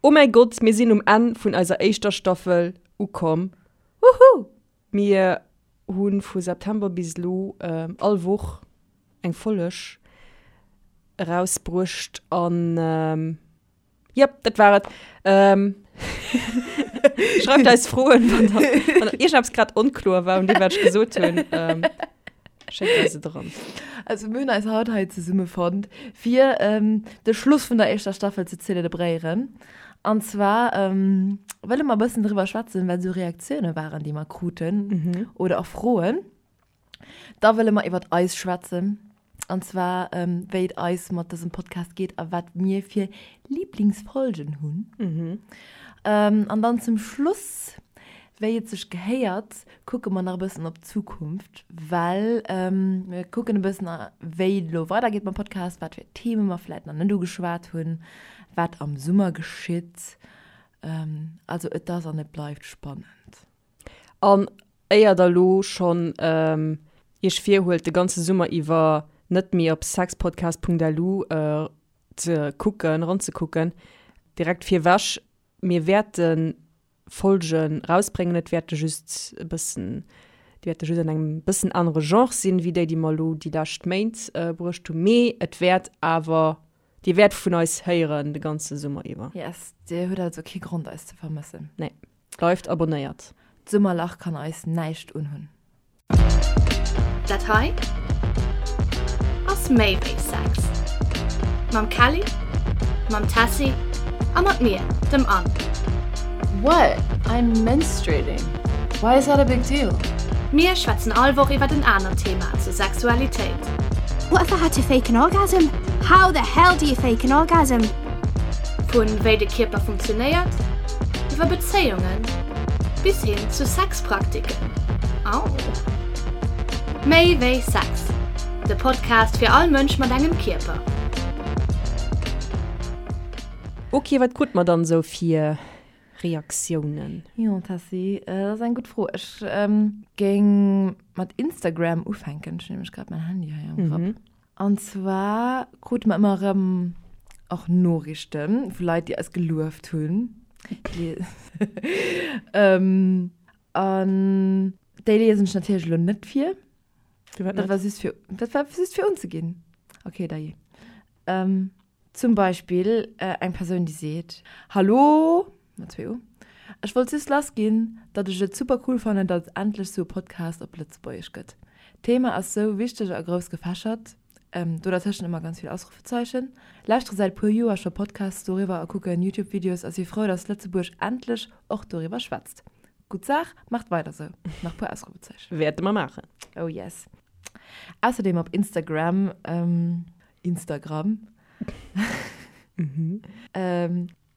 Oh mäi Gott, mir sinn um Enn vun eiser éischter Staffel ukomm. Woohoo! Mir hu vu September bis elo all Woch eng Folleg erausbruecht an jep, dat war et. Schreift eis Froen, wann der, wann der iergendeppes grad onkloer war un deem, wat ech gesot hunn. Schéckt eis et eran. Also mir hunn eis haut hei zesummefonnt, fir de Schluss vun der éischter Staffel ze zelebréieren. An zwar wëlle mer e bëssen driwwer schwätzen, wat esou Reaktioune waren, déi mer kruten oder och Froen. Da wëlle mer iwwert eis schwätzen, an zwar wéi et eis mat dësem Podcast geet a wat mir fir Liblingsfolgen hunn. An dann zum Schluss, wéi et sech gehéiert, kucke mer nach e bëssen op d'Zukunft, well mir kucken e bëssen, wéi et elo weidergeet mam Podcast, wat fir Theme mer vläit nach net ugeschwat hunn, wat am Summer geschitt. Also et ass an et bleift spannend. An éier der elo schonn Iech virhuelt, de ganze Summer iwwer net méi op sexpodcast.lu ze kucken, eranzekucken, direkt virwech, Mir wäerten Folgen rausbréngen. Et wäerte just e bëssen, déi wäerte just an engem bëssen anere Genre sinn, wéi déi, déi mer elo déi lescht Méint bruecht hunn. Mee et wäert awer, Dir wäert vun eis héieren de ganze Summer iwwer. Yes, Dir hutt also kee Grond eis ze vermëssen. Nee, bleift abonnéiert. D'Summerlach kann eis näischt unhunn. Dat hei ass méi wéi Sex. Mam Kelly, mam Tessy a mat mir, dem Anne. What? I'm menstruating. Why is that a big deal? Mir schwätzen all Woch iwwert en anert Thema zur Sexualitéit. What if I had to fake an orgasm? How the hell do you fake an orgasm? Vun wéi de Kierper funktionéiert, iwwer Bezéiungen bis hin zu Sexpraktiken. Au! Méi wéi Sex, de Podcast fir all Mënsch mat engem Kierper. Ok, wat krut mer dann esou fir Reaktiounen? Jo Tessy, dat ass eng gutt Fro. Ech géing mat Instagram ufänken, ech hunn nämlech grad mäin Handy hei am Grapp. An zwar krute mer ëmmer erëm och Noriichte vu Leit, déi eis gelueft hunn. An déi liesen ech natierlech elo net vir. Firwat Dat net? war just fir, dat war just fir unzeginn. Okay, dajee. Zum Beispill eng Persoun, déi seet, Hallo, mat zwee U, ech wollt just lass ginn, datt ech et super cool fannen, datt et endlech sou e Podcast op Lëtzebuergesch gëtt. D'Thema ass sou wichteg a grouss gefächert, do dertëschent ëmmer ganz vill Ausrufezeichen. Lauschtere säit puer Joer scho Podcasts doriwwer a kucken Youtube-Videos a si frou, datt Lëtzebuerg endlech och doriwwer schwätzt. Gutt Saach, maacht weider sou! Nach puer Ausrufezeichen. Wäerte mer maachen. Oh yes. Ausserdeem op Instagram. Instagram.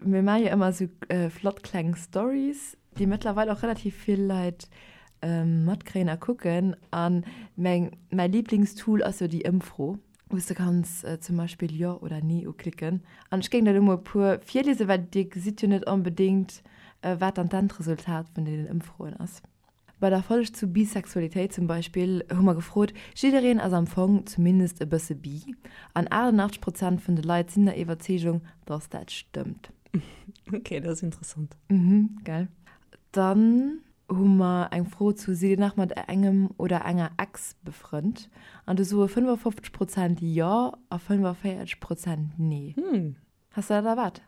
Mir maache jo ëmmer esou flott kleng Stories, déi mëttlerweil och relativ vill Leit matkréien a kucken. A meng, mäi Liblingstool ass jo déi Ëmfro, wou s de kanns zum Beispill Jo oder Nee uklicken. An ech géing der elo mol e puer virliesen, well dir gesitt jo net onbedéngt, wat dann d'Endresultat vun deenen Ëmfroen ass. Bei der Folg zu Bisexualitéit zum Beispill hu mer gefrot, jiddereen ass am Fong zumindest e bësse bi, an 88 Prozent vun de Leit sinn der Iwwerzeegung, dass dat stëmmt. Ok, dat ass interessant. Mhm, gell. Dann hu mer eng Fro zu Sidd Dir nach mat engem oder enger Ex befrënnt? An do soe 55 Prozent jo a 45 Prozent nee. Hm. Has de dat erwaart?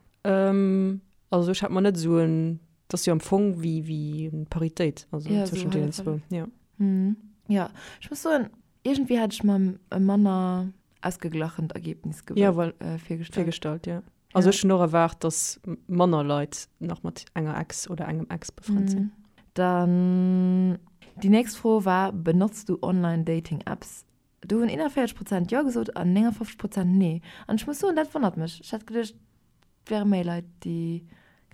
Also ech hat mer net esou en, dat ass jo am Fong wéi wéi eng Paritéit, also Ja, esou zwëschen deenen hallef zwou, hallef. ja. Mhm. Ja, ech muss soen, iergendwéi hat ech mer e manner ausgeglachent Ergebnis gew Ja, well äh, virgestallt. virgestallt, ja. Also Ja. ech hunn och erwaart, dass manner Leit nach mat enger Ex oder engem Ex befrënnt sinn. Mhm. Dann déi nächst Fro war, Benotzt du Online-Dating-Apps? Do hunn 41 Prozent Jo gesot an 59 Prozent Nee. An ech muss soen, dat wonnert mech. Ech hätt geduecht, et wäre méi Leit, déi,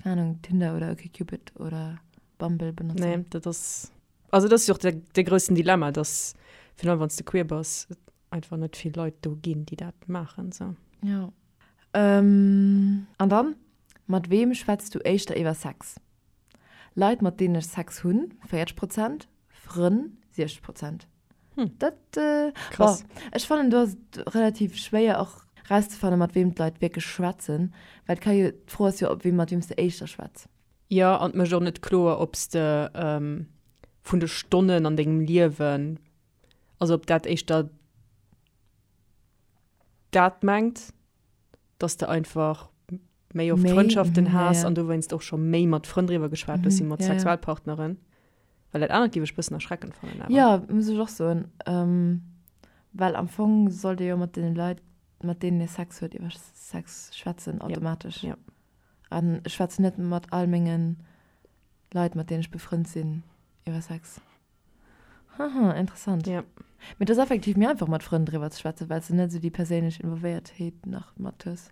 keng Ahnung, Tinder oder OkCupid oder Bumble benotzen. Nee, dat ass, also dat ass jo och de, de groussen Dilemma, dass virun allem wann s de queer bass, et einfach net vill Leit do ginn, déi dat maachen, sou. Jo. An dann, Mat weem schwätz du éischter iwwer Sex? Leit, mat deenen ech Sex hunn, 40 Prozent, Frënn, 60 Prozent. Hm. Dat, äh, Krass. Boah, ech fannen, do ass et relativ schwéier och. Rauszefannen, mat weem d'Leit wierklech schwätzen, well et ka jo, d'Fro ass jo, ob weem, mat weem s de éischter schwätz. Jo, an et mécht och net kloer, ob s de vun de Stonnen an dengem Liewen, also ob dat éischter dat mengt, dass de einfach méi oft Frëndschaften has an dowéinst och scho méi mat Frënn driwwer geschwat hues wéi mat Sexualpartneren. Well dat anert géif ech bëssen erschreckend fannen awer. Jo, muss ech och soen. Well am Fong sollt ee jo mat deene Leit, mat deenen ee Sex huet, iwwer Sex schwätzen, automatesch. Jo. An ech schwätzen net mat all menge Leit, mat deenen ech befrënnt sinn, iwwer Sex. Haha, interessant. Ja. Mee et ass effektiv méi einfach mat Frënn driwwer ze schwätzen, well s de net esou déi perséinlech Involvéiertheet nach mat hues.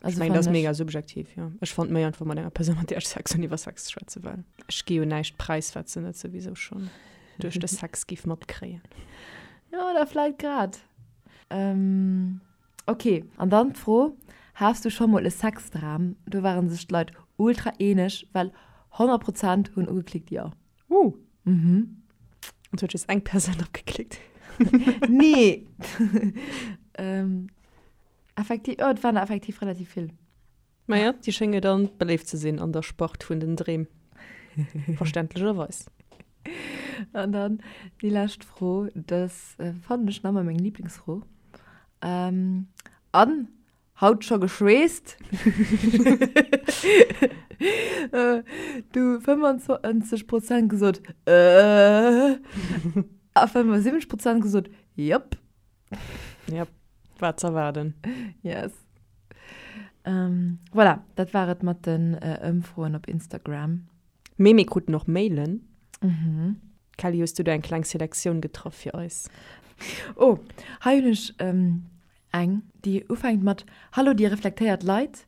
Also ech mengen, dat ass mega subjektiv, jo. Ech fannt méi einfach mat enger Persoun, mat där ech Sex hunn, iwwer Sex ze schwätzen, well ech gi jo näischt präis, wat se net souwisou schonn duerch de Sex giff matkréien. Jo, oder vläit grad. Ähm, ok, an dann d'Fro, Has du scho mol e Sexdram? Do ware sech d'Leit ultra eeneg, well 100 Prozent hunn ugeklickt jo. Uh. Mhm. Und huet just eng Persoun drop geklickt. Nee. ähm, effektiv, oh, et waren der effektiv relativ vill. Naja, déi schénge dann beléift ze sinn an der Spart vun den Dreem. Verständlecherweis. An dann déi lescht Fro, das äh, fannen ech nach ëmmer meng Lieblingsfro. Ähm, an Haut scho geschweesst? Du 25 Prozent gesot äh a 75 Prozent gesot jop. Jop, war z'erwaarden. Yes. Ähm, voilà, dat war et mat den Ëmfroen op Instagram. Mee mir kruten och Mailen. Mhm. Kelly, hues du do eng kleng Selektioun getraff fir eis? Oh, hei hunn ech Eng, déi ufänkt mat Hallo dir reflektéiert Leit,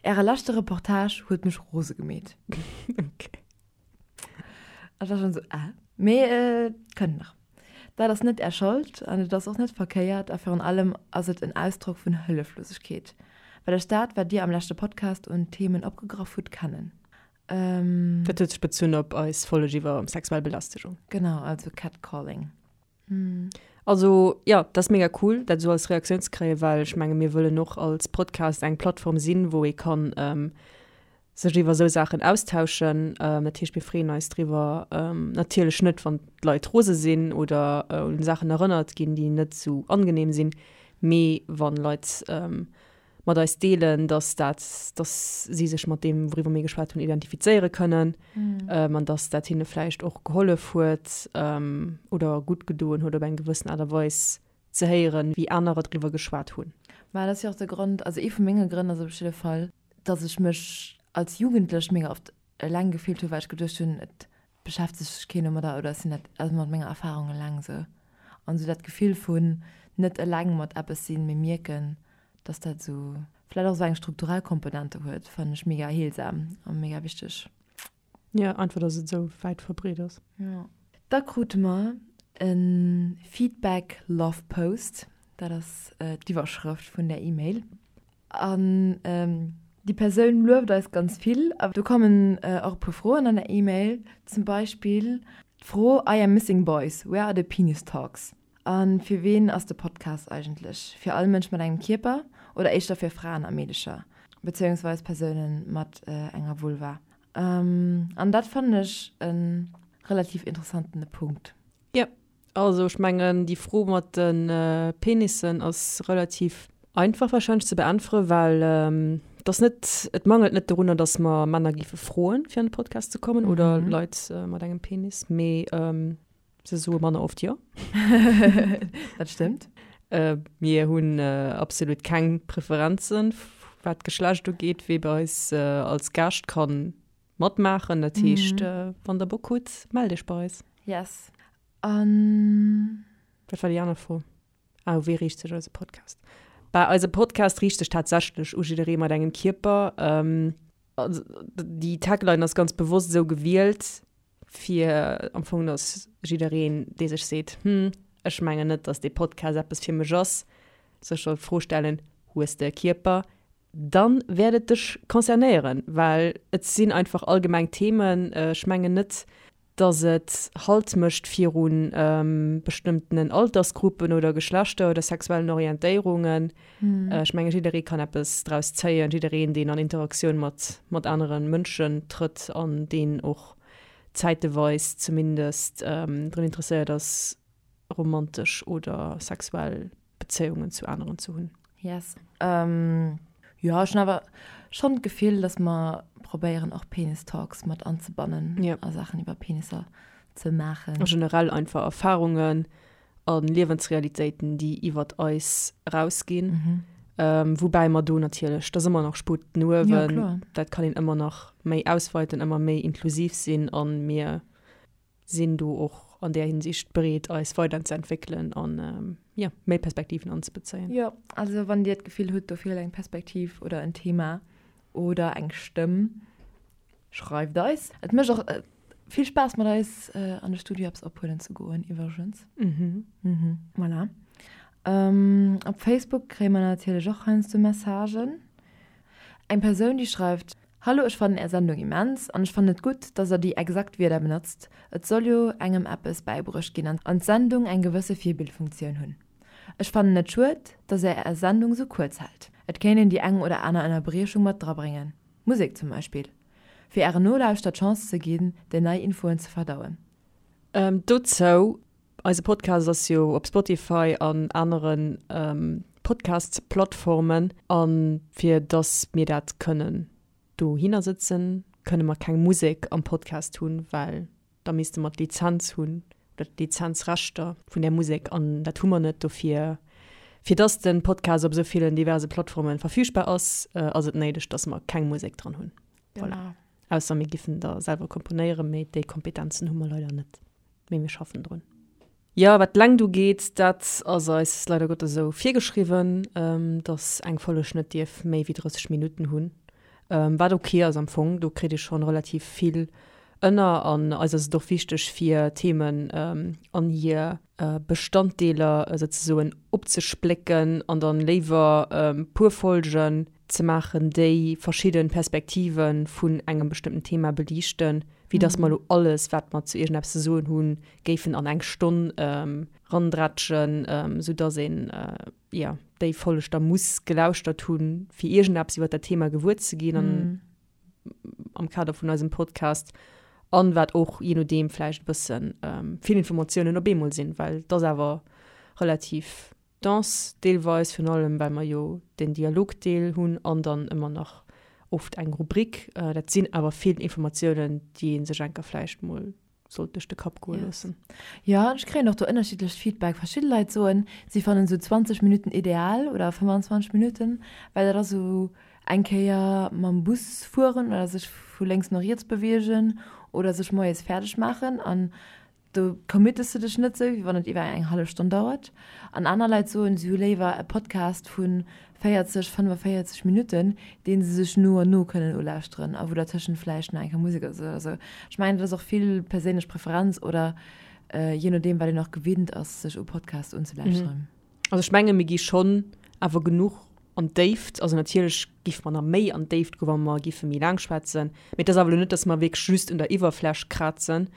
äre leschte Reportage huet mech rose gemeet. Ok. Ech war schonn esou, äh. Mee et kënnt nach. Dat ass net är Schold an et ass och net verkéiert a virun allem ass et en Ausdrock vun Hëlleflosegkeet, well ech dat, wat dir am leschte Podcast un Themen opgegraff hutt, kennen. Dat huet sech bezunn op eis Folleg iwwer sexuell Belästegung. Genau, also Catcalling. Also jo, dat ass mega cool, dat esou als Reaktioun ze kréien, well ech menge mir wëllen och als Podcast eng Plattform sinn, wou ee kann sech iwwer esou Saachen austauschen. Dat heescht, mir freeën eis driwwer, natierlech net, wann d'Leit rose sinn oder un Saachen erënnert ginn, déi net esou angenehm sinn, mee wann Leit mat eis deelen, dass dat, dass si sech mat deem, wouriwwer mir geschwat hunn, identifizéiere kënnen an dass dat hinne vläicht och gehollef huet oder gutt gedoen huet op eng gewëssen Aart a Weis ze héieren, wéi anerer driwwer geschwat hunn. Mä dat ass jo och de Grond, also ee vu menge Grënn ass op jidde Fall, dass ech mech als Jugendlech mega oft eleng gefillt hunn, well ech geduecht hunn, et beschäftegt sech keen domadder oder ech sinn dat also mat menger Erfarung eleng esou. An esou dat Gefill vun net eleng mat eppes sinn, mee mierken, dass dat esou vläicht och esou eng strukturell Komponente huet, fannen ech mega heelsam a mega wichteg. Jo, einfach dass et esou wäit verbreet ass. Jo. Da krute mer e Feedback Love Post, dat ass d'Iwwerschrëft vun där E-Mail. An déi Persoun lueft eis ganz vill. A do kommen och e puer Froen an der E-Mail. Zum Beispill d'Fro, I am missing boys, where are the penis talks? A fir ween ass de Podcast eigentlech? Fir all Mënsch mat engem Kierper oder éischter fir Fraen a Meedecher, bezéiungsweis Persoune mat enger Vulva? An dat fannen ech e relativ interessantene Punkt. Jo, Also ech mengen déi Fro mat de Penissen ass relativ einfach wahrscheinlech ze beäntweren, well et ass net, et mangelt net dorunner, datt mer Männer géife froen, fir an de Podcast ze kommen oder Leit mat engem Penis, mee se soe manner oft jo. Dat stëmmt. Mir hunn absolut keng Preferenzen, wat d'Geschlecht ugeet, wee bei eis als Gaascht kann Matmaachen, dat heescht wann der Bock hutt, mellt iech bei eis. Yes. An. Wat war déi aner Fro? Ah, u wee riicht sech eise Podcast? Bah, eise Podcast riicht sech tatsächlech u jidderee mat engem Kierper. Also déi Tagline ass ganz bewosst esou gewielt, fir am Fong, dass jiddereen, dee sech seet, Hm, ech mengen net, dass dee Podcast eppes fir mech ass, sech soll d'Fro stellen, Hues de e Kierper? Dann wäert et dech concernéieren, well et sinn einfach allgemeng Themen. Ech mengen net, Dass et Halt mécht viru bestëmmtenen Altersgruppen oder Geschlechter oder sexuellen Orientéierungen. Ech menge jidderee kann eppes draus zéien, jiddereen, deen an Interaktioun mat mat anere Mënschen trëtt an deen och zäiteweis zumindest drun interesséiert ass, romantesch oder sexuell Bezéiungen zu aneren ze hunn. Yes. Jo, ech hunn awer schonn d'Gefill, dass mer probéieren och Penis Talks mat anzebannen a Saachen iwwer Penisser ze maachen. A generell einfach Erfarungen a Liewensrealitéiten, déi iwwert eis erausginn. Woubäi mer do natierlech, dat ass ëmmer nach Sputt no uewen, dat kann een ëmmer nach méi ausweiten, ëmmer méi inklusiv sinn a mir sinn do och an där Hinsicht bereet, eis weiderzeentwéckelen an, jo, méi Perspektiven anzebezéien. Jo, also wann Dir d'Gefill hutt, do feelt eng Perspektiv oder en Thema oder eng Stëmm, schreift eis. Et mécht och vill Spaass, mat eis an de Studio eppes ophuelen ze goen, iwwregens. Voilà. Op Facebook kréie mer natierlech och heiansdo Messagen. Eng Persoun, déi schreift, Hallo, ech fannen är Sendung immens an ech fannen et gutt, dass der déi exakt Wierder benotzt. Et soll jo engem eppes bäibruecht ginn an d'Sendung eng gewësse Virbildfunktioun hunn. Ech fannen et schued, dass är är Sendung sou kuerz hält. Et kéint een déi eng oder aner Ënnerbriechung mat drabréngen, Musek zum Beispill, fir ären Nolauschter d'Chance ze ginn, déi nei Infoen ze verdauen. Dozou, Eise Podcast ass jo op Spotify an anere Podcast-Plattformen. A fir dass mir dat kënnen dohinner sëtzen, kënne mer keng Musek am Podcast hunn, well da misste mer d'Lizenz hunn oder d'Lizenzrechter vun där Musek an dat hu mer net. Dofir, fir dass de Podcast op esou villen diverse Plattforme verfügbar ass, ass et néideg, dass mer keng Musek dran hunn. Voilà. Ausser mir giffen der selwer komponéieren, mee déi Kompetenzen hu mer leider net. Mee mir schaffen drun. Jo, wat d'Längt ugeet, dat ass eis leider Gottes esou virgeschriwwen, dass eng Folleg net dierf méi wéi 30 Minutten hunn. Wat ok ass am Fong, do kritt ee schonn relativ vill ënner. An eis ass et och wichteg, fir Themen an hir Bestanddeeler souzesoen opzesplécken an dann léiwer puer Folgen ze maachen, déi verschidde Perspektive vun engem bestëmmten Thema beliichten, wéi dass mer elo alles, wat mer zu iergendeppes ze soen hunn, géifen an eng Stonn randrätschen, soudass een, jo, déi Folg da muss gelauschtert hunn, fir iergendeppes iwwer dat Thema gewuer ze ginn an am Kader vun eisem Podcast. An wat och jee nodeem vläicht e bësse vill Informatiounen op eemol sinn, well et ass awer relativ Danse deelweis, virun allem well mer jo den Dialogdeel hunn an dann ëmmer nach oft eng Rubrik. Dat sinn awer vill Informatiounen, déi ee sech enker vläicht mol sollt duerch de Kapp goe loossen. Jo, an ech kréien och do ënnerschiddlecht Feedback. Verschidde Leit soen, si fannen esou 20 Minutten ideal oder 25 Minutten, well dat ass esou eng Kéier mam Bus fueren oder sech vu lénks no riets beweegen oder sech moies fäerdeg maachen an Do committes de dech net sou, wéi wann et iwwer eng hallef Stonn dauert. An aner Leit soen, si hu léiwer e Podcast vu 40, 45 Minutten, dee se sech no an no kënnen ulauschteren a wou dertëschent vläicht nach eng Kéier Musek ass oder sou. Ech mengen, dat ass och vill perséinlech Preferenz oder jee nodeem, wat een och gewinnt ass, sech u Podcasts unzelauschteren. Also ech menge mir gi schonn awer genuch an d'Déift. Also natierlech géife mer nach méi an d'Déift goen, wa mer géife méi laang schwätzen. Mee et ass awer elo net, datt mer wierklech just un der Iwwerfläch krazen.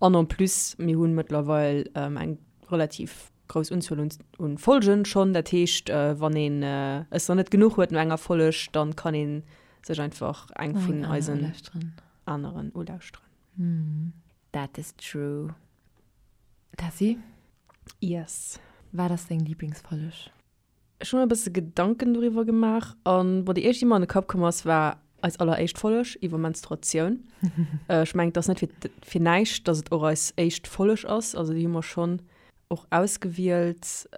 An en plus, mir hu mëttlerweil eng relativ grouss Unzuel un un Folgen schonn. Dat heescht, wann een es nach net genuch huet no enger Folg, dann kann ee sech einfach eng vun eisen aneren ulauschteren. That is true. Tessy? Yes. Wat ass deng Lieblingsfolleg? Ech hu mer e bësse Gedanken doriwwer gemaach an bon, déi éischt, déi mer an de Kapp komm ass, war eis alleréischt Folleg iwwer Menstruatioun. Ech mengen, et ass net fir, fir näischt, dass et och eis éischt Folleg ass. Also déi hu mer schonn och ausgewielt,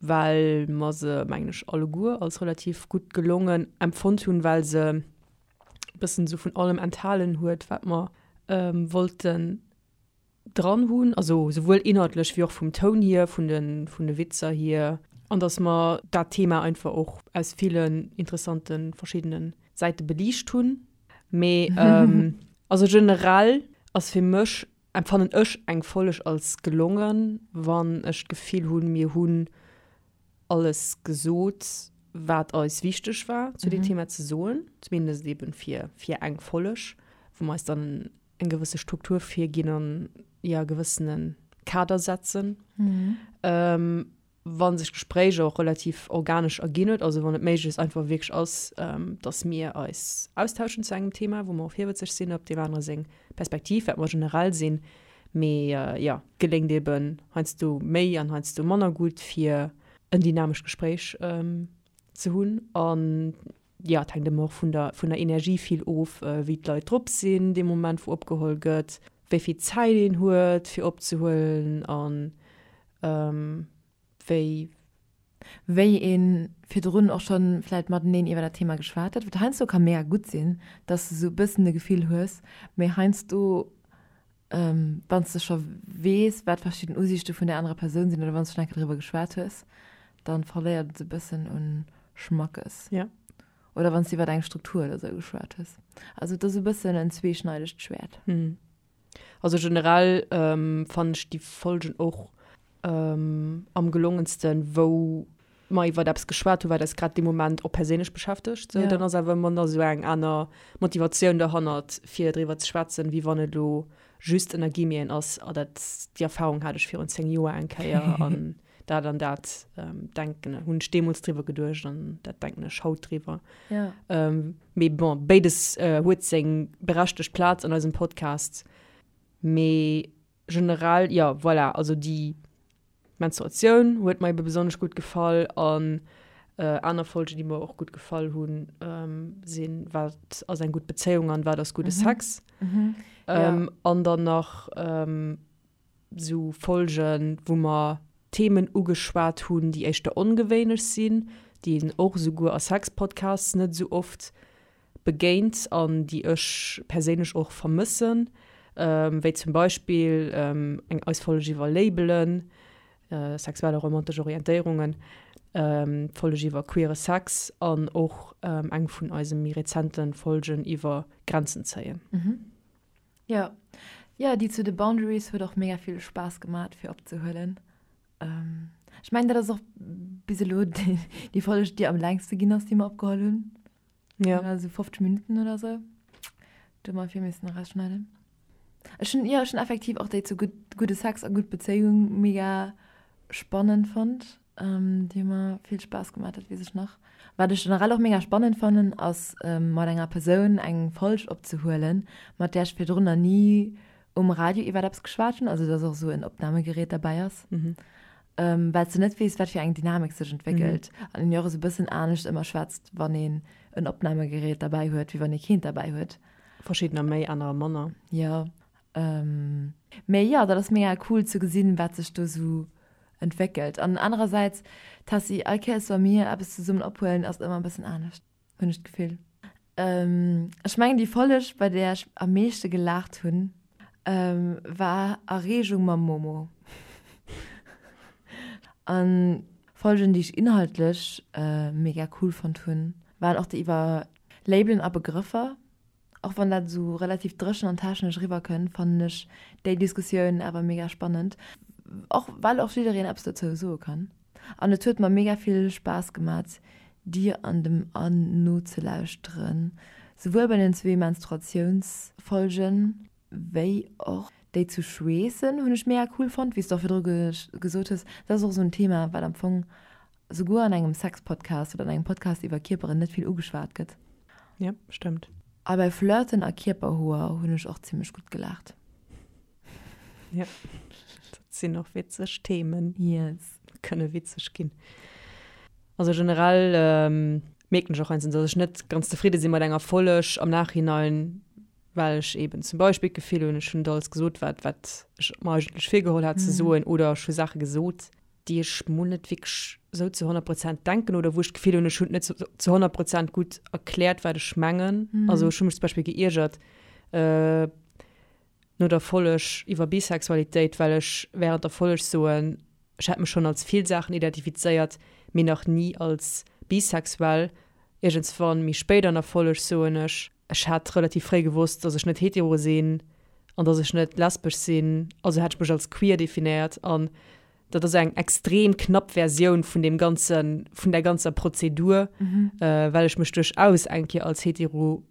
well mer se, mengen ech, alleguer als relativ gutt gelongen empfonnt hunn, well se e bëssen esou vun allem enthalen huet, wat mer wollten dran hunn, also souwuel inhaltlech wéi och vum Toun hier, vun de, vun de Witzer hier, an dass mer dat Thema einfach och aus villen interessante verschiddene Säite beliicht hunn. Mee also generell ass fir mech, empfannen ech eng Folg als gelongen, wann ech d'Gefill hunn, mir hunn alles gesot, wat eis wichteg war zu deem Thema ze soen, zumindest eben fir, fir eng Folg, wou mer eis dann. Eng gewësse Struktur virginn an, jo, e gewëssene Kader setzen. Wa sech d'Gespréich och relativ organesch erginn huet, also wann et méiglechst einfach wierklech ass, dass mir eis austauschen zu engem Thema, wou mer och virwëtzeg sinn op deem anere seng Perspektiv, wat mer generell sinn, mee jo, geléngt eeben heiansdo méi an heiansdo manner gutt, fir en dynamescht Gespréich ze hunn. An jo, et hänkt ëmmer och vun der, vun der Energie vill of, wéi d'Leit drop sinn dee Moment, wou opgeholl gëtt, wéi vill Zäit een huet, fir opzehuelen an wéi. Wéi ee virdrun och scho vläicht mateneen iwwer dat Thema geschwat huet, wat heiansdo ka mega gutt sinn, dass de sou e bëssen e Gefill hues, mee heiansdo, wann s de scho weess, wat verschidden Usiichte vun där anerer Persoun sinn oder wann s de schonn eng Kéier driwwer geschwat hues, da verléiert et e bëssen u Schmackes. Ja. Oder wann s de iwwer eng Struktur oder sou geschwat hues. Also et ass e bëssen en zweeschneidegt Schwäert. Also generell fannen ech déi Folgen och am gelongensten, wou mer iwwert eppes geschwat hu wat eis grad dee Moment och perséinlech beschäftegt. Sou, dann ass awer ëmmer nach esou eng aner Motivatioun derhannert fir driwwer ze schwätzen, wéi wann et elo just ënner Guillemeten ass, ah dat déi Erfahrung hat ech virun 10 Joer eng Kéier an dat an dat denken hunn ech deemools driwwer geduecht an dat denken ech haut driwwer. Ja. Mee bon, béides huet seng berechtegt Plaz an eisem Podcast. Mee generell, jo, voilà, also déi Menstruatioun huet mer ebe besonnesch gutt gefall an aner Folgen, déi mer och gutt gefall hunn, sinn Wat ass eng gutt Bezéiung an Wat ass gudde Sex? An dann nach Sou Folgen, wou mer Themen ugeschwat hunn, déi éischter ongewéinlech sinn, déi een och esouguer a Sexpodcasts net esou oft begéint an déi ech perséinlech och vermëssen, wéi zum Beispill eng eis Folg iwwer Labelen, sexuell a romantesch Orientéierungen, d'Folg iwwer queere Sex an och eng vun eise méi rezente Folgen iwwer Grenzen zéien. Jo, jo, déi zu de Boundaries huet och mega vill Spaass gemat fir opzehuelen. Ech mengen dat ass och bis elo déi Folg déi am längste ginn ass déi mer opgeholl hunn. Jo. Also 50 Minutten oder sou. Do hu mer vill missen erausschneiden. Ech hunn, jo, ech hunn effektiv och déi zu gutt, gudde Sex a gutt Bezéiung mega spannend fonnt. Déi hu mer vill Spaass gemaach, dat weess ech nach. Wat ech generell och mega spannend fannen, ass mat enger Persoun eng Folg opzehuelen, mat där ech virdrun nach ni um Radio iwwert eppes geschwat hunn, also dass och esou en Opnamegerät derbäi ass, well s de net weess, wat fir eng Dynamik sech entwéckelt an een jo och esou e bëssen anescht ëmmer schwätzt, wann een en Opnamegerät derbäi huet, wéi wann ee keent derbäi huet. Verschiddener méi, anerer manner. Jo, mee jo, dat ass mega cool ze gesinn, wat sech do esou entwéckelt. An anerersäits, Tessy, all Kéiers wa mir eppes zesummen ophuelen, ass et ëmmer e bëssen anescht, hunn ech d'Gefill. Ech mengen déi Folleg, bei där ech am meeschte gelaacht hunn, war Erreegung mam Momo. An Folgen, déi ech inhaltlech mega cool fonnt hunn, waren och déi iwwer Labelen a Begrëffer. Och wann dat esou relativ dréchen an technesch eriwwer kënnt, fannen ech déi Diskussioun awer mega spannend, och well och jiddereen eppes dozou soe kann. An et huet mer mega vill Spaass gemat dir an dem Anne nozelauschteren, souwuel bei den zwee Menstruatiounsfolgen, wéi och déi zu Schweessen hunn ech mega cool fonnt, wéi s de och virdru gesot hues, dat ass och esou en Thema wat am Fong souguer an engem Sexpodcast oder an engem Podcast iwwer Kierperen net vill ugeschwat gëtt. Ja, stëmmt. A bei Flirten a Kierperhoer hunn ech och zimmlech gutt gelaacht. Ja, dat sinn och witzeg Themen. Yes. Kënne witzeg ginn. Also generell mierken ech och heiansdo, dass ech net ganz zefridde si mat enger Folleg am Nachhinein, well ech eben zum Beispill d'Gefill hunn, ech hunn net alles gesot, wat wat ech mer eigentlech virgeholl hat ze soen oder ech hu Saache gesot, déi ech mol net wierklech esou zu 100 Prozent denken oder wou ech d'Gefill hunn, ech hunn et net zu 100 Prozent gutt erkläert, wat ech mengen. Also ech hu mech zum Beispill geiergert no der Folleg iwwer Bisexualitéit, well ech während der Folleg soen, ech hätt mech schonn als vill Saachen identifizéiert, mee nach ni als bisexuell. Iergendswann méi spéit an der Folleg soen ech, Ech hat relativ fréi gewosst, dass ech net hetero sinn an dass ech net lesbesch sinn, also hat ech mech als queer definéiert an. Dat ass eng extrem knapp Versioun vun deem ganzen, vun där ganzer Prozedur, well ech mech duerchaus eng Kéier als hetero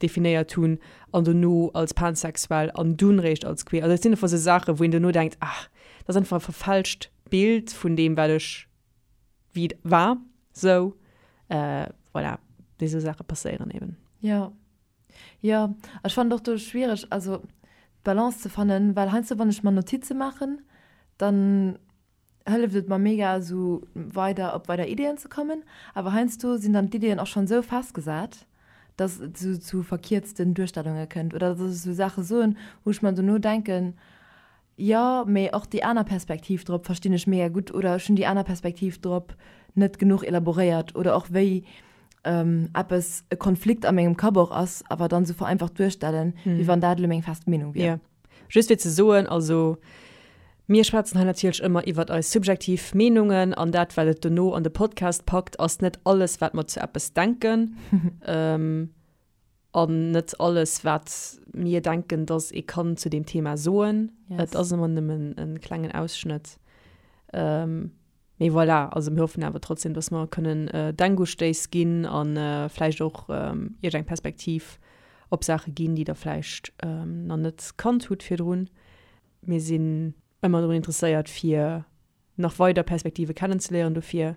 definéiert hunn an dono als pansexuell an dunn réischt als queer. Also dat sinn einfach esou Saachen, wou een dono denkt, ah, dat ass einfach e verfälscht Bild vun deem, wat ech wéi et war. Sou, voilà, déi esou Saache passéieren eben. Jo. Jo, ech fannen et och do schwiereg, also d'Balance ze fannen, well heiansdo wann ech mer Notize maachen, dann hëlleft et mer mega esou weider op weider Ideeën ze kommen, awer heiansdo sinn dann d'Ideeën och schonn esou festgesat, dass et esou zu verkierzten Duerstellunge kënnt oder dass ech esou Saache soen, wou ech mer dono denken, Jo, mee och déi aner Perspektiv drop verstinn ech mega gutt oder ech hunn déi aner Perspektiv drop net genuch elaboréiert oder och wéi eppes e Konflikt a mengem Kapp och ass, awer dann esou vereinfacht duerstellen, wéi wann dat elo meng fest Meenung wier. Jo, just fir ze soen, also mir schwätzen hei natierlech ëmmer iwwert eis subjektiv Meenungen an dat wat et dono an de Podcast packt ass net alles wat mer zu eppes denken. An net alles, wat mir denken, dass ee kann zu deem Thema soen. Yes. Et ass ëmmer nëmmen e klengen Ausschnëtt. Ähm, mee voilà, also mir hoffen awer trotzdem, dass mer kënnen äh, Denkustéiss ginn an äh, vläicht och ähm, iech eng Perspektiv op Saache ginn, déi der vläicht ähm, nach net kannt hutt virdrun. Mir sinn ëmmer drun interesséiert, fir nach weider Perspektive kennenzeléieren. Dofir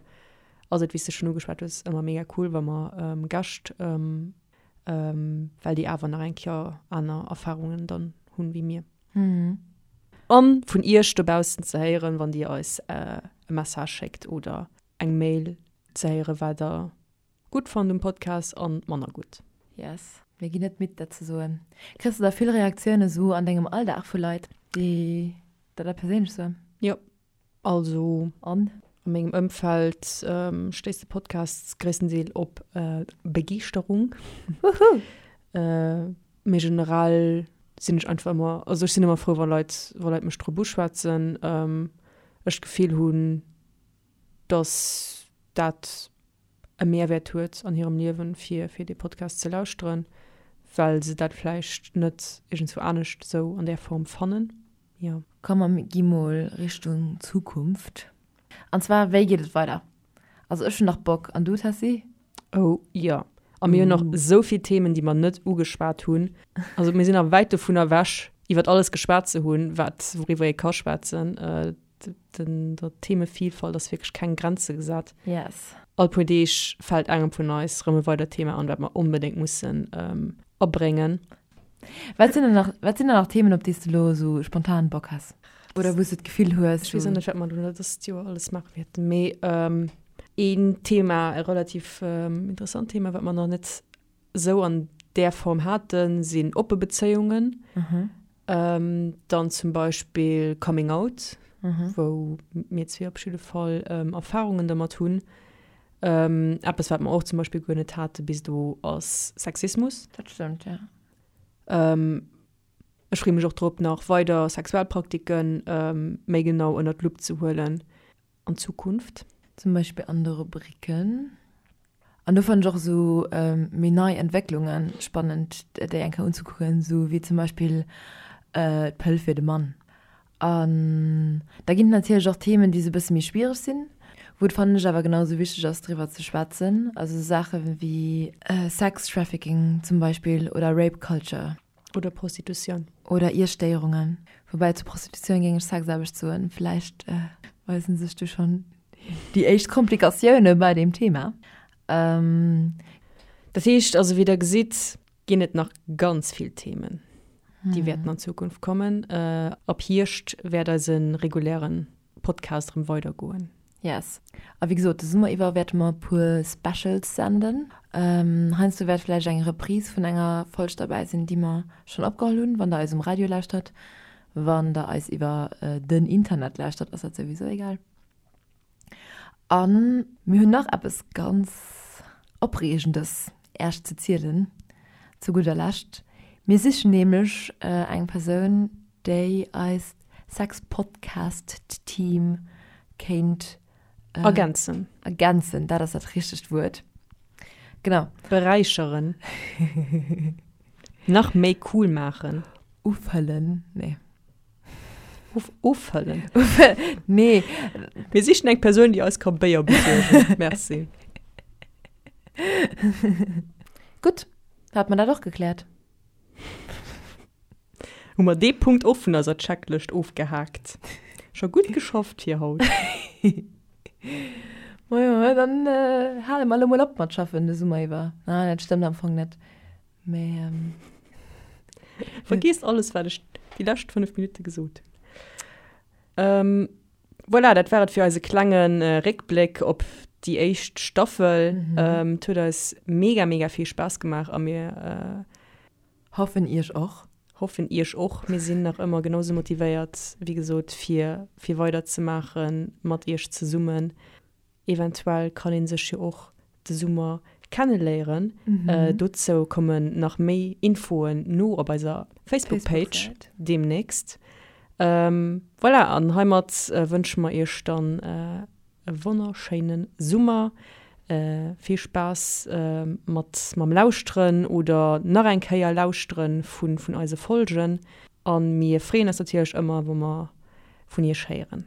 ass et, wéi s de schonn ugeschwat hues, ëmmer mega cool, wa mer Gäscht, well déi awer nach eng Kéier aner Erfarungen dann hunn wéi mir. An vun iech dobaussen ze héieren, wann dir eis e Message schéckt oder eng Mail ze héieren, wat der gutt fannt um Podcast an manner gutt. Yes, mir ginn net midd dat ze soen. Kriss de da vill Reaktiounen esou an dengem Alldag vu Leit, déi der dat perséinlech soen? Jo, also An? a mengem Ëmfeld stéisst de Podcast gréisstendeel op Begeeschterung. Wouhou! Mee generell sinn ech einfach ëmmer, also ech sinn ëmmer frou wa Leit, wa Leit mech drop uschwätzen, ech d'Gefill hunn, dass dat e Mehrwäert huet an hirem Liewen, fir fir dee Podcast ze lauschteren, well se dat vläicht net iergendswou anescht esou an där Form fannen. Jo. Komm mer gi mol Richtung Zukunft. An zwar, wéi geet et weider? Also ech hunn nach Bock, an du Tessy? Oh jo. A mir hunn nach esou vill Themen, déi mer net ugeschwat hunn. Also mir sinn nach wäit dovun ewech, iwwert alles geschwat ze hunn, wat wouriwwer ee ka schwätzen. Den, der Themevielfalt ass wierklech keng Grenze gesat. Yes. All puer Deeg fält engem vun eis rëm e weidert Thema an, wat mer onbedéngt mussen abréngen. Wat sinn denn nach, wat sinn denn nach Themen, op déi s de elo esou spontan Bock has? Oder wou s de d'Gefill hues, Ech weess och net, wat mer elo dëst Joer alles maache wäerten, mee een Thema, e relativ interessant Thema, wat mer nach net esou an där Form haten, sinn oppe Bezéiungen. Dann zum Beispill Coming Out, wou mir zwee op jidde Fall Erfarungen dermat hunn. Eppes, wat mer och zum Beispill guer net hate bis elo, ass Sexismus. Dat stëmmt, jo. Ech freeë mech och drop, nach weider Sexualpraktiken méi genau ënnert d'Lupp ze huelen. an Zukunft. Zum Beispill an de Rubriken. An do fannen ech och esou méi nei Entwécklunge spannend, déi eng Kéier unzekucken, esou wéi zum Beispill d'Pëll fir de Mann. An da ginn et natierlech och Themen, déi esou e bësse méi schwiereg sinn, wou et, fannen ech, awer genau esou wichteg ass, driwwer ze schwätzen. Also esou Saache wéi Sex Trafficking zum Beispill oder Rape Culture. Oder Prostitutioun. Oder Iesstéierungen. Woubäi zu Prostitutioun géing ech Sexaarbecht soen. Vläicht weisen sech du schonn déi éischt Komplikatioune bei deem Thema. Dat heescht also, wéi der gesitt, ginn et nach ganz vill Themen, déi wäerten an Zukunft kommen. Ab Hierscht wäert eise regulären Podcast erëm weidergoen. Yes. A wéi gesot, de Summer iwwer wäerte mer e puer Specials senden. Heiansdo wäert vläicht eng Reprise vun enger Folg derbäi sinn, déi mer schonn opgeholl hunn, wann der eis um Radio lauschtert. Wann der eis iwwer den Internet lauschtert, ass dat souwisou egal. A mir hunn nach eppes ganz Opreegendes Äech ze zielen, zu gudder Lescht. Mir sichen nämlech eng Persoun, déi eist Sexpodcast-Team kéint ergänzen. Ergänzen, dat ass dat richtegt Wuert. Genau. Beräicheren. Nach méi cool maachen. Ufëllen, nee. Of, offëllen? Nee. Mir sichen eng Persoun, déi eis ka Béier besuergen. Merci. Gutt, da hat mer dat och gekläert. Hu mer dee Punkt och vun eiser Checklëscht ofgehaakt. Scho gutt geschafft fir haut. Majo, dann hale mer elo mol op mat schaffen de Summer iwwer. Ah, dat stëmmt am Fong net. Mä. Vergiesst alles, wat ech déi lescht 5 Minutte gesot hunn. Voilà, dat war et fir eise klenge Réckbléck op déi éischt Staffel. Et huet eis mega, mega vill Spaass gemaach a mir. Hoffen iech och. Hoffen iech och. Mir sinn nach ëmmer genau sou motivéiert, wéi gesot, fir, fir weider ze maache mat iech zesummen. Eventuell kann ee sech jo och de Summer kenneléieren. Dozou kommen nach méi Infoen no op eiser Facebook-Page deemnächst. Voilà, an heimat wënsche mer iech dann e wonnerschéine Summer. Vill Spaass mat mam Lauschteren oder nach eng Kéier Lauschteren vun vun eise Folgen. A mir freeën eis natierlech ëmmer, wa mer vun iech héieren.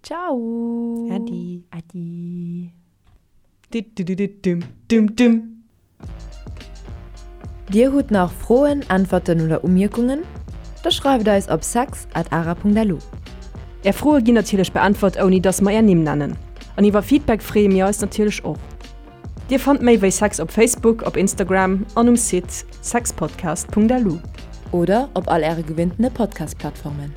Ciao! Äddi! Äddi! Diddididdum-dum-dum. Dir hutt nach Froen, Äntwerten oder Umierkungen? Da schreift eis op sex at ara.lu. Är Froe ginn natierlech beäntwert ouni dass mer är Nimm nennen. An iwwer Feedback freeë mir eis natierlech och. Dir fannt méi wéi Sex op Facebook, op Instagram an um Site sexpodcast.lu. Oder op all äre gewinntene Podcast-Plattformen.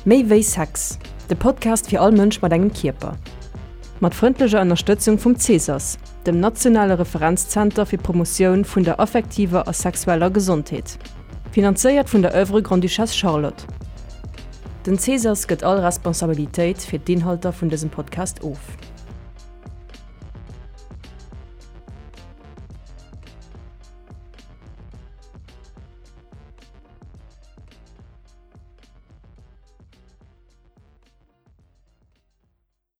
Méi wéi Sex, de Podcast fir all Mënsch mat engem Kierper. Mat frëndlecher Ënnerstëtzung vum CSAS, dem nationale Referenzzenter fir d'Promotioun vun der affektiver a sexueller Gesondheet. Finanzéiert vun der Oeuvre Grande-Duchesse Charlotte. Den CSAS gëtt all Responsabilitéit fir d'Inhalter vun dësem Podcast of.